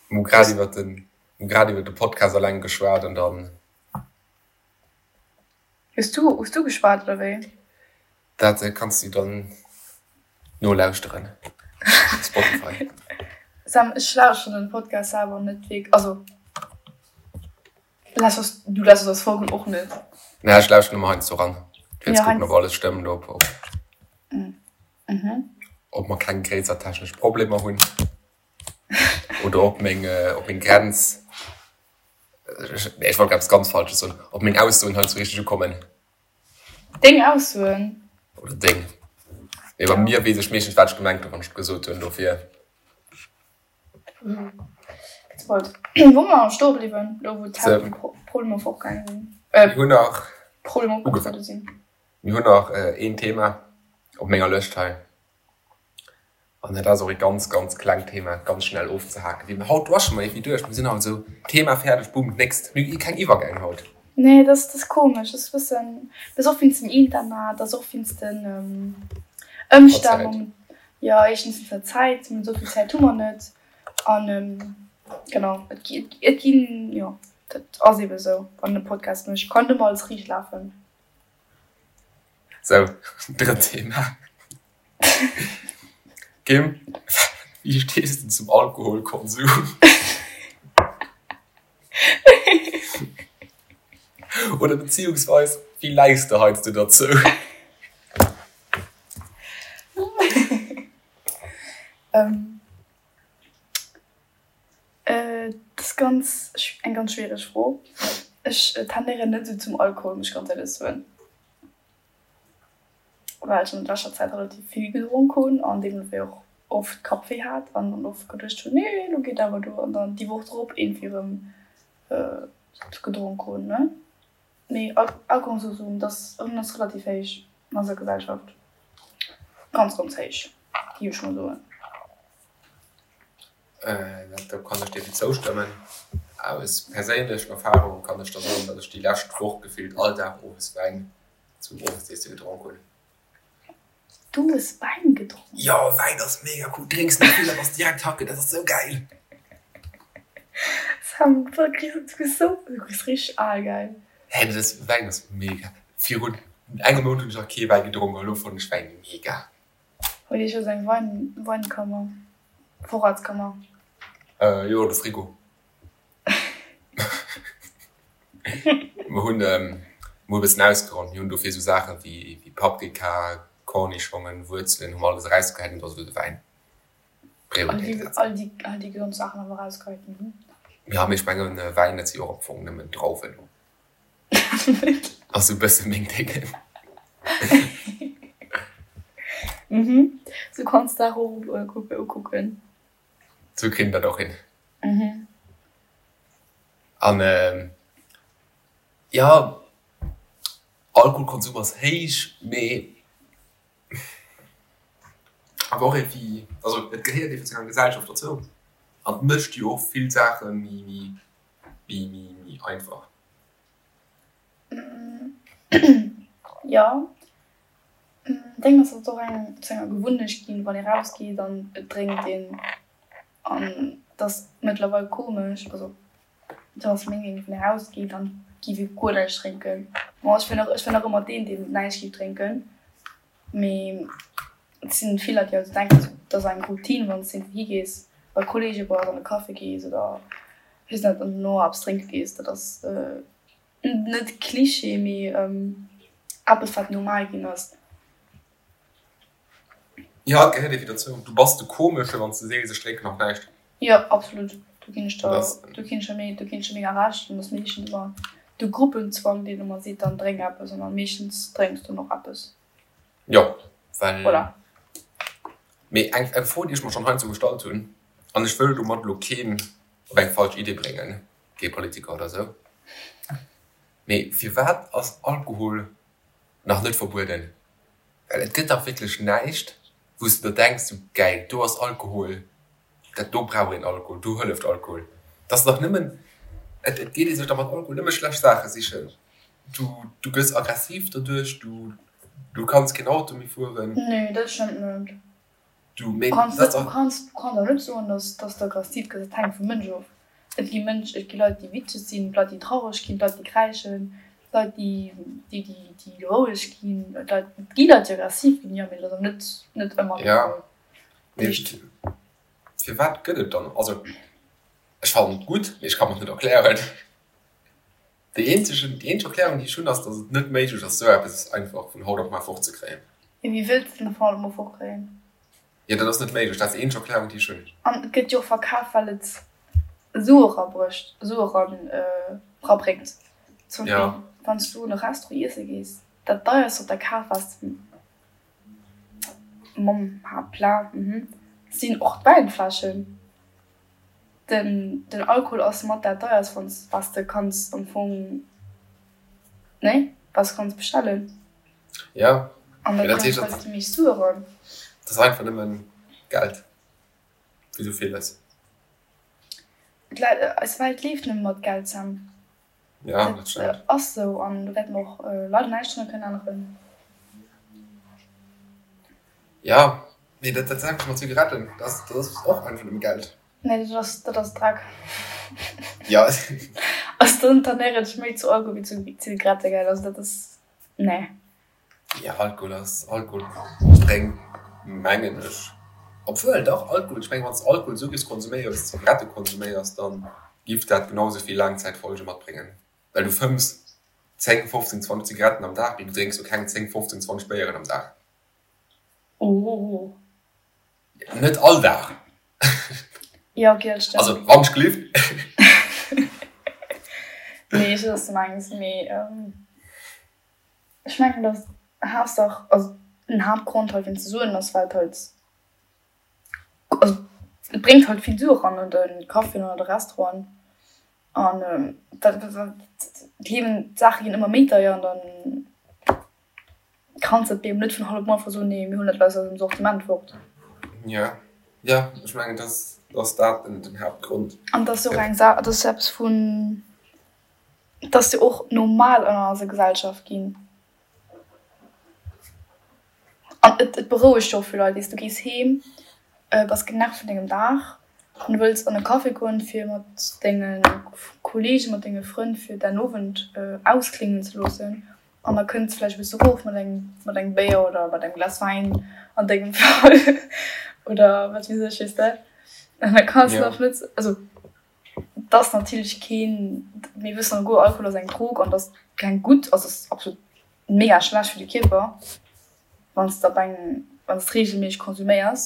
Mir hu grad iwwer den, mir hu grad iwwer de Podcast alleng geschwat an dann. Hues du, hues du geschwat oder wéi? Dat kanns du dann nolauschteren op Spotify. Sam, ech lauschteren den Podcast selwer net wierk, also lauschters, du lauschters eis Folgen och net? Nee, ech lauschteren ëmmer heiansdo ran, fir ze kucken, ob alles stëmmt, ob, ob, ob mer keng gréisser technesch Problemer hunn oder ob meng, ob meng Grenz, nee, ech wollt grad eppes ganz Falsches soen, ob meng Aussoen heiansdo richteg ukommen. Deng Aussoen? Oder deng. Mee bei mir weess ech meeschtens, wat ech gemengt hunn, wann ech et gesot hunn. Dofir. Wou mer stoe bliwwen, elo wou d'Haaptproblemer fortgaange sinn. Mir hunn nach. Problemer opgetruede sinn. Mir hunn nach een Thema op menger Lëscht hei. An dat ass och ee ganz, ganz klengt Thema, ganz schnell ofzehaken. Wéi haut rushe mer iergendwéi duerch. Mir sinn haut esou, Thema fäerdeg, boom, d'nächst. Mir hu keng Iwwergäng haut. Nee, dat ass komesch. Dat ass e bëssen, dat ass och wéinst dem Internet, dat ass och wéinst den Ëmstänn. Jo, éischtens wéinst der Zäit, esou vill Zäit hu mer net. An genau, et ginn, jo, dat ass eebe esou, wann een e Podcast mécht, kann net ëmmer alles riicht lafen. Sou, drëtt Thema. Kim, wéi stees de zum Alkoholkonsum? Oder beziehungsweis, wéi läis de heiansdo derzou? Dat ass ganz, eng ganz schwiereg Fro. Ech tendéieren net esou zum Alkohol, muss ech ganz éierlech soen. Well ech an leschter Zäit relativ vill gedronk hunn an deemno wéi och oft Kappwéi hat an dann oft geduecht hunn, nee elo geet awer duer an dann déi Woch drop iergendwéi erëm gedronk hunn, ne. Mee Alkoholkonsum, dat ass relativ héich an eiser Gesellschaft, ganz ganz héich géif ech mol soen. Do kann ech dir zoustëmmen. Aus perséinlecher Erfahrung kann ech der soen, datt ech déi lescht Woch gefillt all Dag owes Wäin zum Owesiesse gedronk hunn. Du hues Wäin gedronk? Jo, Wäin ass mega cool. Drénks net vill a bass direkt hacke, dat ass sou gäil. Sam, du kriss sou, du kriss richteg al, gell? Hä, dat ass, Wäin ass mega. Virun engem Mount hunn ech nach kee Wäi gedronk a lo fannen ech Wäin mega. Huet Iech jo eng Wein, Weinkammer, Vorratskammer? Jo, de Frigo. Mer hunn mol e bëssen ausgeräumt. Mir hunn dofir esou Saache wéi Paprika, Kornischongen, Wuerzelen hu mer alles erausgehäit an do ass elo de Wäin Prioritéit gesetzt. All déi, all déi gesond Saachen awer erausgehäit, mhm. Jo, mee ech mengen, Wäin, dat si jo och am Fong nëmmen Drauwen. Ass esou e bësse meng Déngen. Mhm. Sou kanns d'Saach och ukucken. Sou kritt een dat och hin. Mhm. An jo, Alkoholkonsum ass héich, mee awer och iergendwéi, also et gehéiert iergendwéi zu enger Gesellschaft dozou an et mécht jo och vill Saache méi, méi, méi einfach. Jo, deng ass et och eng zu enger Gewunnecht ginn, wann ee rausgeet an et drénkt een an et ass mëttlerweil komesch, also dat ass meng Meenung, wann ee rausgeet an giff ee guer näischt drénken. Bon ech wier nach, ech wier nach ëmmer deen, deen näischt giff drénken, mee et sinn vill Leit déi also denken, et ass eng Routine wann s de iergendwou higees, bei Kolleege bass an e Café gees oder weess net an dono eppes drénke gees, dat ass Net Klischee, mee eppes wat normal ginn ass. Jo, et gehéiert iergendwéi dozou. Du bass de Komesche wann s de sees, ech drénken nach näischt. Jo, absolut. Do ginn ech der, do ginn ech der mega, do ginn ech der mega Recht. An et ass meeschtens ëmmer de Gruppenzwang, deen ëmmer seet, dann drénk eppes. An da meeschtens drénks du dann och eppes. Jo, well. Voilà. Mee eng, eng Fro, déi ech mer schonn heiansdo gestallt hunn, an ech wëll domat elo keen op eng falsch Idee bréngen, kee Politiker oder sou. Mee firwat ass Alkohol nach net verbueden? Well et gëtt dach wierklech näischt, wou s de der denks, sou gäil, do ass Alkohol, dat do brauch een Alkohol, do hëlleft Alkohol. Et ass dach nëmmen, et geet ee sech da mat Alkohol nëmme schlecht Saache sichen. Du, du gëss aggressiv doduerch, du, du kanns keen Auto méi fueren. Nee, dat stëmmt net. Du, mee dat ass dach. Du kanns, du kanns awer net soen, dass, dass de aggressiv gëss. Dat hänkt vum Mënsch of. Et gi Mënsch, et gi Leit, déi witzeg sinn, Leit, déi traureg ginn, Leit, déi kräischen, Leit, déi, déi, déi, déi roueg ginn, Leit, et gi Leit, déi aggressiv ginn, jo, mee dat ass awer net, net ëmmer de Fall. Ja, mee firwat gëtt et dann, also ech fannen et gutt, mee ech ka mer et net erklären. Déi eenzegen, déi eenzeg Erklärung, déi ech hunn, ass, datt et net méiglech ass, esou eppes einfach vun haut op mar fortzekréien. Jo, wéi wëlls de den vun haut op mar fortkréien? Jo, dat ass net méiglech. Dat ass déi eenzeg Erklärung, déi ech hunn. An et gëtt jo och verkaf, well et Sue erabrécht, Sue eran, erabréngt. Zum Beispill, wann s du an e Restaurant iesse gees, dat deierst, wat der kaf ass, mam Haaptplat, sinn och d'Wäinfläschen. Den den Alkohol ass mat dat deierst wanns was de kanns am Fong nee was kanns bestellen. Ja, an da bréngt halt déi meescht Sue eran. Dat ass einfach nëmmen Geld, wéi sou villes. Eis Welt leeft nëmme mat Geld, Sam. Ja, dat stëmmt. Dat ass sou an do wäerte mer och leider näischt drun kënnen änneren. Ja, mee dat dat selwecht mat Zigaretten, dat ass dat ass och einfach nëmme Geld. Nee, dat ass dat ass Dreck. Ja. Also dann dann éiert ech méi zu Alkohol wéi zu Zigarette, gell, also dat ass nee. Jo, Alkohol ass, Alkohol bréngt mengen ech, obwuel dach Alkohol, ech mengen wann s de Alkohol esou giffs konsuméieren wéi s de Zigarette konsuméiers, dann giff dat genau esou vill Laangzäitfolge matbréngen, well du fëmms 10, 15, 20 Zigaretten am Dag, mee du drénks jo keng 10, 15, 20 Béieren am Dag. Oh. Net all Dag. Jo, ok, dat stëmmt. Also wann ech gelift. Nee, ech weess wat s de mengs, mee. Ech mengen dass Haaptsaach, also den Haaptgrond hei fir ze soen ass well et halt, also et bréngt halt vill Sue eran an de Caféen an an de Restauranten an dat d'Liewen, d'Saache ginn ëmmer méi deier an dann kanns de et eben net vun haut op muer einfach soen, nee mir huelen dat aus eisem Sortiment fort. Jo, jo, ech mengen dass ass dat den Haaptgrond. An et ass jo och eng Saach, et ass jo eppes vun. Et ass jo och normal an eiser Gesellschaft ginn. An et et berouegt jo och vill Leit. Weess, du gees heem, bass genervt vun dengem Dag an du wëlls an e Café goen, fir mat denge Kolleegen, mat denge Frënn fir däin Owend auskléngen ze loossen. An da kënns de vläicht e bësse erof mat engem mat engem Béier oder mat engem Glas Wäin an dengem Fall oder wat weess ech, weess de. An da kanns de nach net, also. Et ass natierlech keen, mir wëssen alleguer, Alkohol ass eng Drog an et ass keng gutt, also et ass absolut mega schlecht fir de Kierper, wann s de op eng, wann s de reegelméisseg konsuméiers.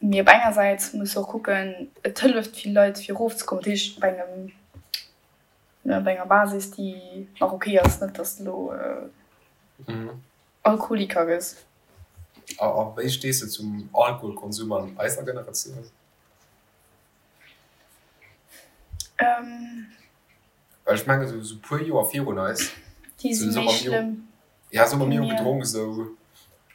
Mee op enger Säit muss de och kucken, et hëlleft vill Leit fir erofzekommen, dat heescht op engem, op enger Basis déi nach ok ass, net datt s de elo Alkoholiker gëss. A wéi stees de zum Alkoholkonsum an eiser Generatioun? Well ech mengen esou puer Joer virun eis, Déi si méi schlëmm. Ja, sou hu mir jo gedronk esou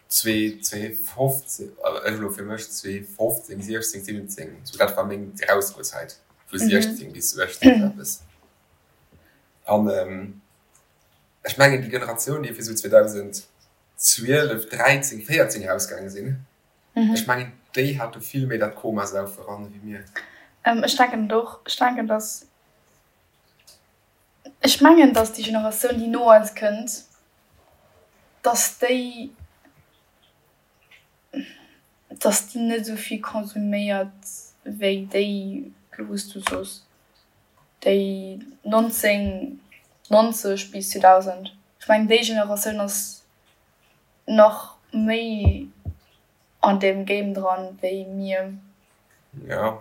2015, ech elo fir mech 2015, 16, 17, sou dat war meng Erausgoezäit, vu 16 bis 18 esou eppes. An ech mengen déi Generatioun, déi fir sou 2012, 13, 14 erausgaange sinn, ech mengen déi hate vill méi dat Komasaufe ran ewéi mir. Ech denken et och. Ech denken, dass Ech mengen, datt déi Generatioun, déi no eis kënnt, datt déi, datt déi net esou vill konsuméiert wéi déi, elo wou s du soos, déi 1990 bis 2000. Ech mengen, déi Generatioun ass nach méi an deem Game dran wéi mir. Ja.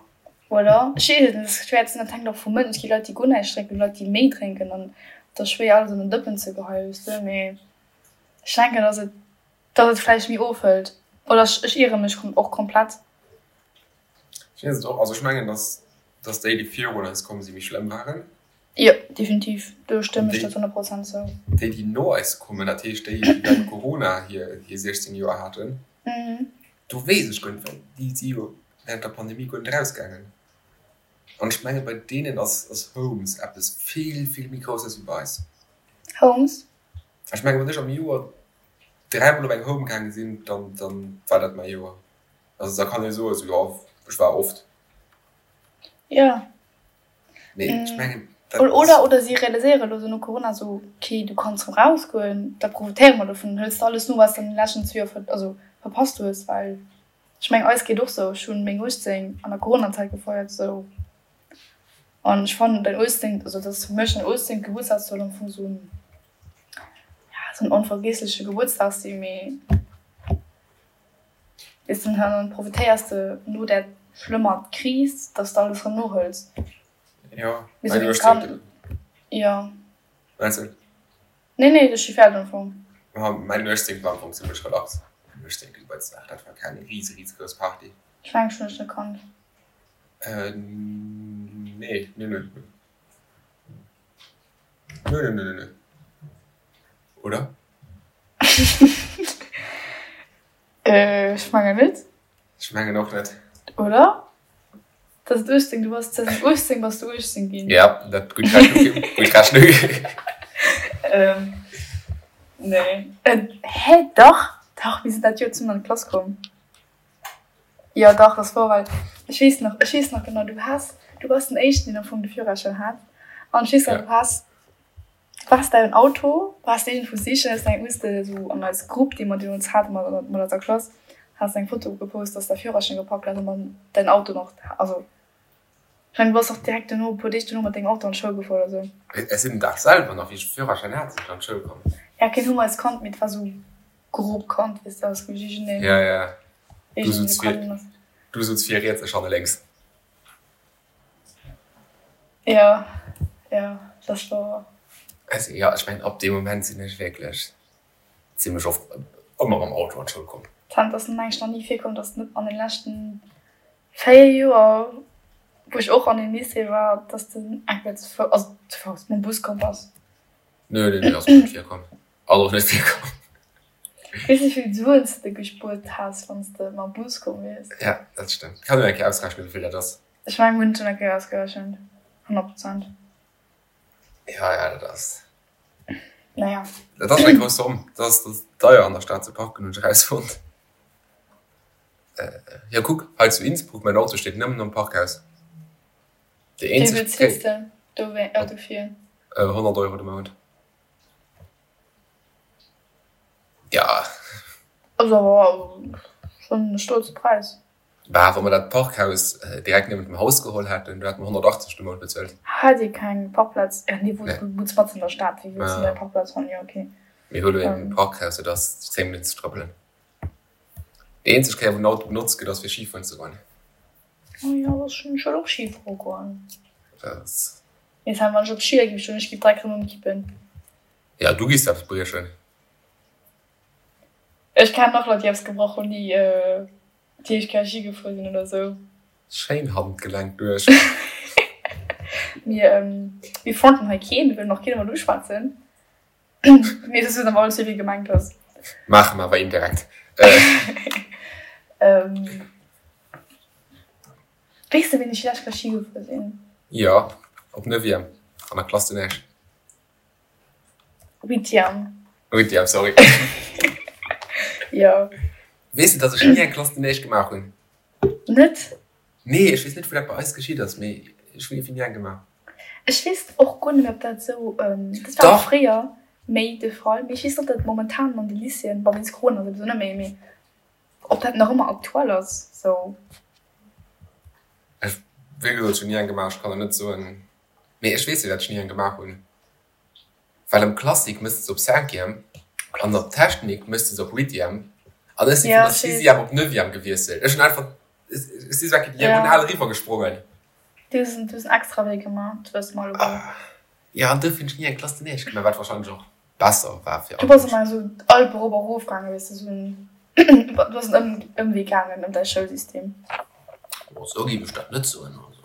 Oder? Ech weess et net, et ass schwéier ze soen, dat hänkt och vum Mënsch. Et gi Leit, déi guer näischt drénken, Leit, déi méi drénken an et ass schwéier alles an en Dëppen ze geheien, weess de. Mee ech denken, dass et, dass et vläicht méi ofhëlt. Oder ech, ech iere mech och komplett. Ech weess et och, also ech mengen, dass, dass déi, déi virun eis komm sinn, méi schlëmm waren. Jo, definitiv, do stëmmen ech der zu 100 Prozent zou. Déi, déi no eis kommen, dat heescht déi, déi während Corona hir 16 Joer haten, do weess ech guer net, well déi si jo während der Pandemie guer net erausgaangen. An ech menge bei deenen ass ass Homes eppes vill, vill méi Grousses wéi bei eis. Homes? Ech menge wann ech am Joer dräimol op eng Home gaange sinn, dann dann war dat mäi Joer. Also da kann ee soen, esou jo, ech war oft. Jo. Mee ech mengen, dat ass. Oder, oder si realiséiere elo sou no Corona sou, okay, du kanns rëm rausgoen, da profitéiere mer dovun, dann hëls de alles no, wat s de an den leschten zwee Joer ver, also verpasst hues. Well ech mengen, eis geet och sou, ech hunn meng 18 an der Coronazäit gefeiert sou an ech fannen däin 18, also dat ass fir mech den 18. Gebuertsdag soll am Fong sou en, ja, sou en onvergiessleche Gebuertsdag sinn, mee. Weess de, dann profitéiers de no där schlëmmer Kris, dass de alles erëm nohëls. Jo, mä du hues Jo. Meinst du? Nee, nee, ech si fäerdeg am Fong. Ma mäin 18 war am Fong zimmlech relax. Mäin 18. Gebuertsdag, dat war keng rise, risegrouss Party. Ech mengen, ech hunn dech net kannt. Nee, nee, nee. Nee, nee, nee, nee. Oder? Ech mengen net. Ech mengen och net. Oder? Dat ass 18, du bass 2018 bass du 18 ginn. Ja, dat gutt Rechnung, gutt Rechnung. Nee. Hä, dach, dach, mir sinn dat Joer zesummen an d'Klass komm. Jo, dach, dat war well ech weess nach, ech weess nach genau, du has, du bass den éischten, deen am Fong de Führerschäin hat an ech weess nach, du has Du waars däin Auto, waars iergendwou sichen, hues eng, hues de esou an eis Grupp, déi mer deemools haten mat mat eiser Klass, has eng Foto gepost, dass de däi Führerschäin gepackt hues an dann däin Auto nach, also ech mengen du bass och direkt duerno, e puer Deeg duerno mat dengem Auto an d'Schoul gefuer oder sou. Ech sinn den Dag selwer nach, wéi ech de Führerschäin hat, sinn ech an d'Schoul komm. Ja, keen hu mer eis kannt, mee et war sou grob kannt, weess de, also iergendeen, Ja, ja, du sutz vir, du sutz vir riets, ech hanne lénks. Jo, jo, dat war. Also jo, ech mengen ab deem Moment sinn ech wierklech zimlech oft ëmmer mam Auto an d'Schoul komm. Tant ass mir mengen nach ni virkomm, dass net an den leschten 4 Joer, wou ech och an dem Lycée war, dass de eng Kéier ze Fouss, also ze Fouss, mam Bus komm bass. Nö, nö, nö, ass mir net virkomm. Ass och net virkomm. Weess wéi vill Suen s de gespuert häss, wann s de mam Bus komm wiers? Ja, dat stëmmt. Kann een eng Kéier ausrechnen, wéi vill dat ass. Ech mengen, mir hunn et schonn eng Kéier ausgerechent. 100 Prozent. Ja, ja, dat ass. Naja. Dat ass eng grouss Zomm. Dat ass, dat ass deier an der Stad ze parken, hunn ech erausfonnt. Jo, kuck, hei zu Innsbruck, mäin Auto steet nëmmen am Parkhaus. Déi Wéi eenzeg bezils de dofir? 100 Euro de Mount. Ja. Ass awer schonn e stolze Präis. Bah, wa mer dat Parkhaus direkt niewent dem Haus geholl hätten, do hätte mer 180 de Mount bezuelt. Hat Dir keng Parkplaz? Ja, nee, wunns matzen an der Stad, wéi wëlls de do eng Parkplaz fannen? Jo, okay. Mir hu lo een Parkhaus, dat ass 10 Minutten ze trëppelen. Déi eenzeg Kéier, wou den Auto benotzt gëtt, ass fir Schifueren ze goen. Oh jo, ech wëll och Schifuere goen. Mee wann ech op Schier géif stoen, ech géif direkt erëm ëmkippen. Ja, du giss eppes briechen. Ech kennen och Leit, déi eppes gebrach hunn, déi déi éischt Kéier Ski gefuer sinn oder sou. Schéin Handgelenk duerch. Mir mir fronten hei keen, mir wëllen och keen emol uschwätzen. Mee et ass awer alles wéi gemengt ass. Maache mer awer indirekt. Weess de wéini ech déi lescht Kéier Ski gefuer sinn? Jo, op Neuvième, an der Classe de neige. Huitième. Huitième, sorry. Jo. Weess de, dass ech ni eng Classe de neige gemaach hunn? Net? Nee, ech weess net, wou dat bei eis geschitt ass, mee ech hunn iergendwéi ni eng gemaach. Ech weess och guer net méi, ob dat esou, dat war fréier méi de Fall, mee ech weess net, ob dat momentan an de Lycéeën, bon, wéinst Corona souwisou net méi, mee ob dat nach ëmmer aktuell ass sou. Ech, wéi gesot, ech hunn ni eng gemaach, ech kann der net soen, mee ech weess jo, dat ech ni eng gemaach hunn, well am Classique méchs de se op Cinquième an op Technique méchs de se op Huitième an ech si vun der Sixième op Neuvième gewiesselt. Ech hunn einfach, ech si sou eng Kéier diagonal eriwwer gesprongen. Du hues en extra Wee gemaach, dat wësse mer alleguer. Jo, an duerfir hunn ech ni eng Classe de neige gemaach, wat wahrscheinlech och besser war fir all. Du bass ëmmer esou d'Alpe erop a erof gaangen, weess de, esou en, du bass en Ëmwee gaangen ëm däi Schoulsystem. Oh, esou géif ech dat net soen, also.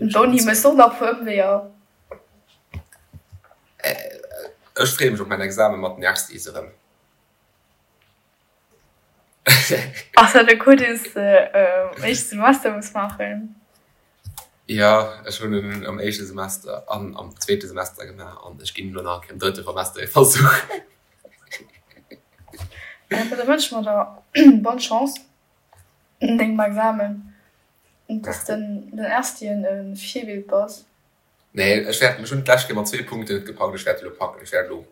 D'Uni mécht och nach e puer Ëmweeër. Ech freeë mech op mäin Examen mat den Erstis erëm. Ass dat e Cours, deen s de am éischte Semester muss maachen? Jo, ech hunn en am éischte Semester an am zweete Semester gemaach an ech ginn elo nach eng Kéier am drëtte Semester e Versuch. Da wënsche mer der bonne Chance an dengem Examen an dass den den Erstien e Virbild bass. Nee, ech wäert, ech hunn d'lescht Kéier mat zwee Punkten net gepackt, ech wäert elo packen, ech wäert elo.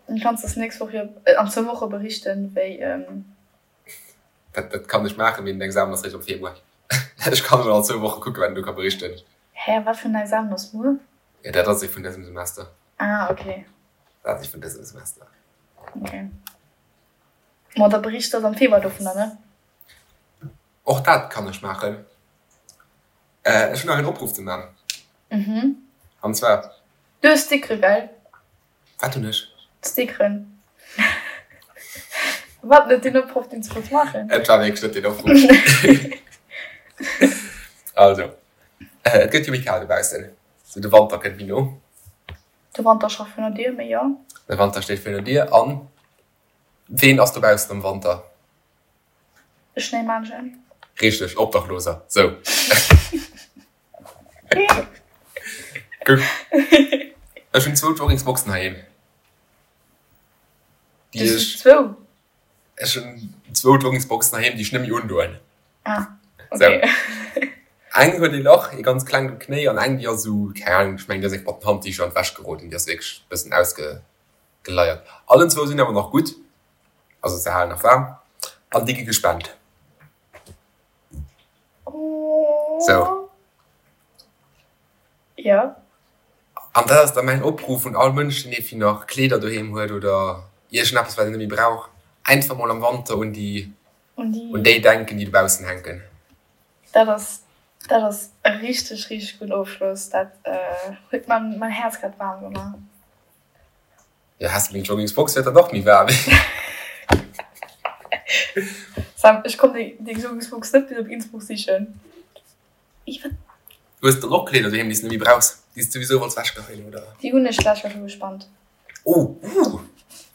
Dann kanns de es nächst Woch jo an zwou Woche berichten, wéi. Dat, dat kann ech maachen, mee den Examen ass réischt am Februar. Ech kann emol an zwou Woche kucken, wat een do ka berichten. Hä, wat fir en Examen ass muer? Jo, dat ass ee vun dësem Semester. Ah, okay. Dat ass ee vun dësem Semester. Okay. Ma da berichts de am Februar dovunner, ne? Och dat kann ech maachen. Ech hunn nach een Opruff ze man. Mhm. An zwar. Du hues Stickere, gell? Wat hunn ech? Stickeren. Wat net deen Opruff, deen s du wolls maachen? Et war wierklech net deen Opruff. Also, et gëtt jo méi kal dobaussen. Sou de Wanter kënnt méi no. De Wanter scho virun der Dier, mee jo. De Wanter steet virun der Dier. An ween ass dobaussen am Wanter? E Schnéimännchen. Richteg, Obdachloser. Sou. Guck. Ech hunn zwou Joggingsboxen heiheem. Déi ech. Zwou? Ech hunn zwou Joggingsboxen heiheem, déi ech net méi undoen. Ah, okay. Sou. Eng huet ee Lach, ee ganz klengt um Knéi, an eng, déi ass esou, keng Ahnung, ech mengen, déi ass eng mat den Handdicher an d'Wäsch geroden, déi ass wierklech e bëssen ausgeleiert. Allen zwou sinn awer nach gutt. Also se halen nach waarm an déi gi gespent. Sou. Jo. An dat ass da mäin Opruff un all Mënsch, deen iergendwéi nach Kleeder doheem huet oder iergendeppes, wat en net méi brauch, einfach mol am Wanter un déi, un déi denken, déi dobaussen hänken. Dat ass, dat ass e richteg, richteg gudden Ofschloss. Dat huet mäin Häerz grad waarm gemaach. Jo, häss de meng Joggingsbox, wäert dat och méi waarm. Sam, ech komm deng Joggingsbox net bis op Innsbruck sichen. Hues de dann och Kleeder doheem, déi s de net méi brauchs, déi s de souwisou wolls wechgeheien, oder? Déi hunn ech d'lescht Joer scho gespannt. Oh, uh!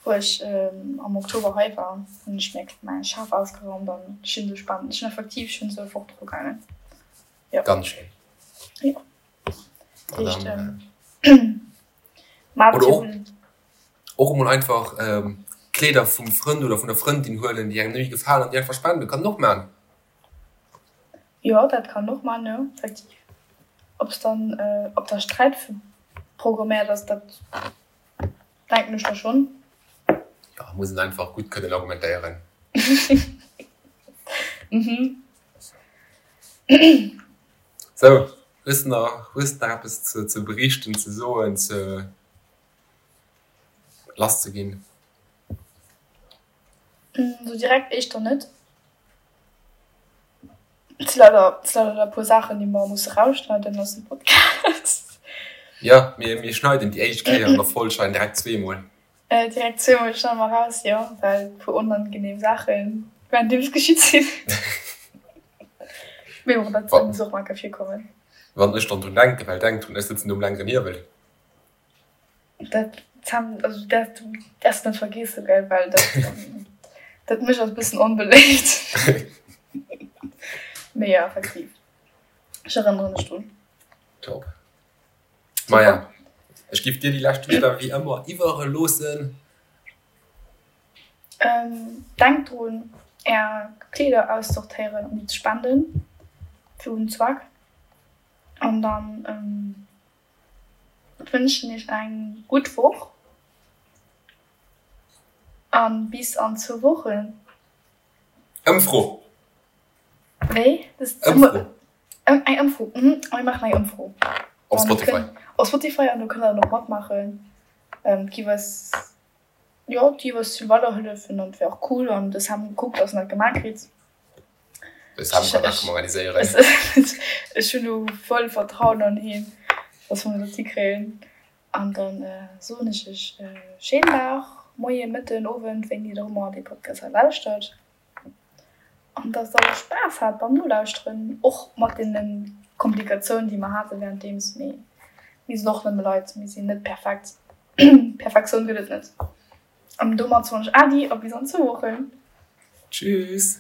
Wou ech am Oktober hei war, hunn ech mir mäi Schaf ausgeraumt an ech hunn se gespannt. Ech hunn effektiv schonn esou fort dru gaangen. Jo. Ganz schéin. Jo. Dat heescht. Oder och, och emol einfach Kleeder vum Frënd oder vun der Frëndin huelen, déi engem net méi gefalen an déi einfach spenden, kann een och man. Jo, dat kann een och man, jo, effektiv. Ob s dann, ob da Sträit programméiert ass, dat denken ech da schonn. Jo, muss een einfach gutt kënnen argumentéieren. Mhm. Sou, hues de nach, hues de nach eppes ze, ze berichten, ze soen, ze lass ze ginn? Sou direkt éischter net. Et si leider, et si leider e puer Saachen, déi mer musse rausschneiden aus dem Podcast. Jo, mir, mir schneiden déi éischt Kéier an der Folg schneiden direkt zweemol. Direkt zweemol schneide mer raus, jo, well e puer onangenehm Saachen währenddeems geschitt sinn. Mee bon, dat muss och mol enke virkommen. Wann ech dann drun denken, well denk drun, ech sëtzen do um längeren Hiewel. Dat Sam, also du däerfs, du däerfs net vergeessen, gell, well dat, dat mécht eis e bëssen onbeléift. Mee jo, effektiv, ech erënnere mech drun. Top. Maja, ech giff dir déi lescht Wierder wéi ëmmer iwwereloossen. Denkt drun, är Kleeder aussortéieren an déi ze spenden fir gudden Zweck. An dann wënschen iech eng gutt Woch an bis an zwou Wochen. Ëmfro! Wéi? Ëmfro! Eng Ëmfro, mhm, mir maachen eng Ëmfro. Op Spotify. Op Spotify an do kënnt der dann och matmaachen. Et giff eis, jo, et giff eis vill weiderhëllefen an et wär och cool an de Sam kuckt, dass en dat gemaach kritt. De Sam kann dat schonn organiséieren. Ech hunn do voll Vertrauen an hien, dass mer dat hikréien. An dann soen ech iech schéinen Dag, Moien, Mëtten, Owend, wéini der och ëmmer dee Podcast hei lauschtert. An dass der Spaass hat beim Nolauschteren, och mat deene Komplikatiounen, déi mer hate wärenddeems. Mee mir sinn och nëmme Leit, mir sinn net perfekt. Perfektioun gëtt et net. An domat soen ech Äddi a bis an zwou Wochen. Tschüss!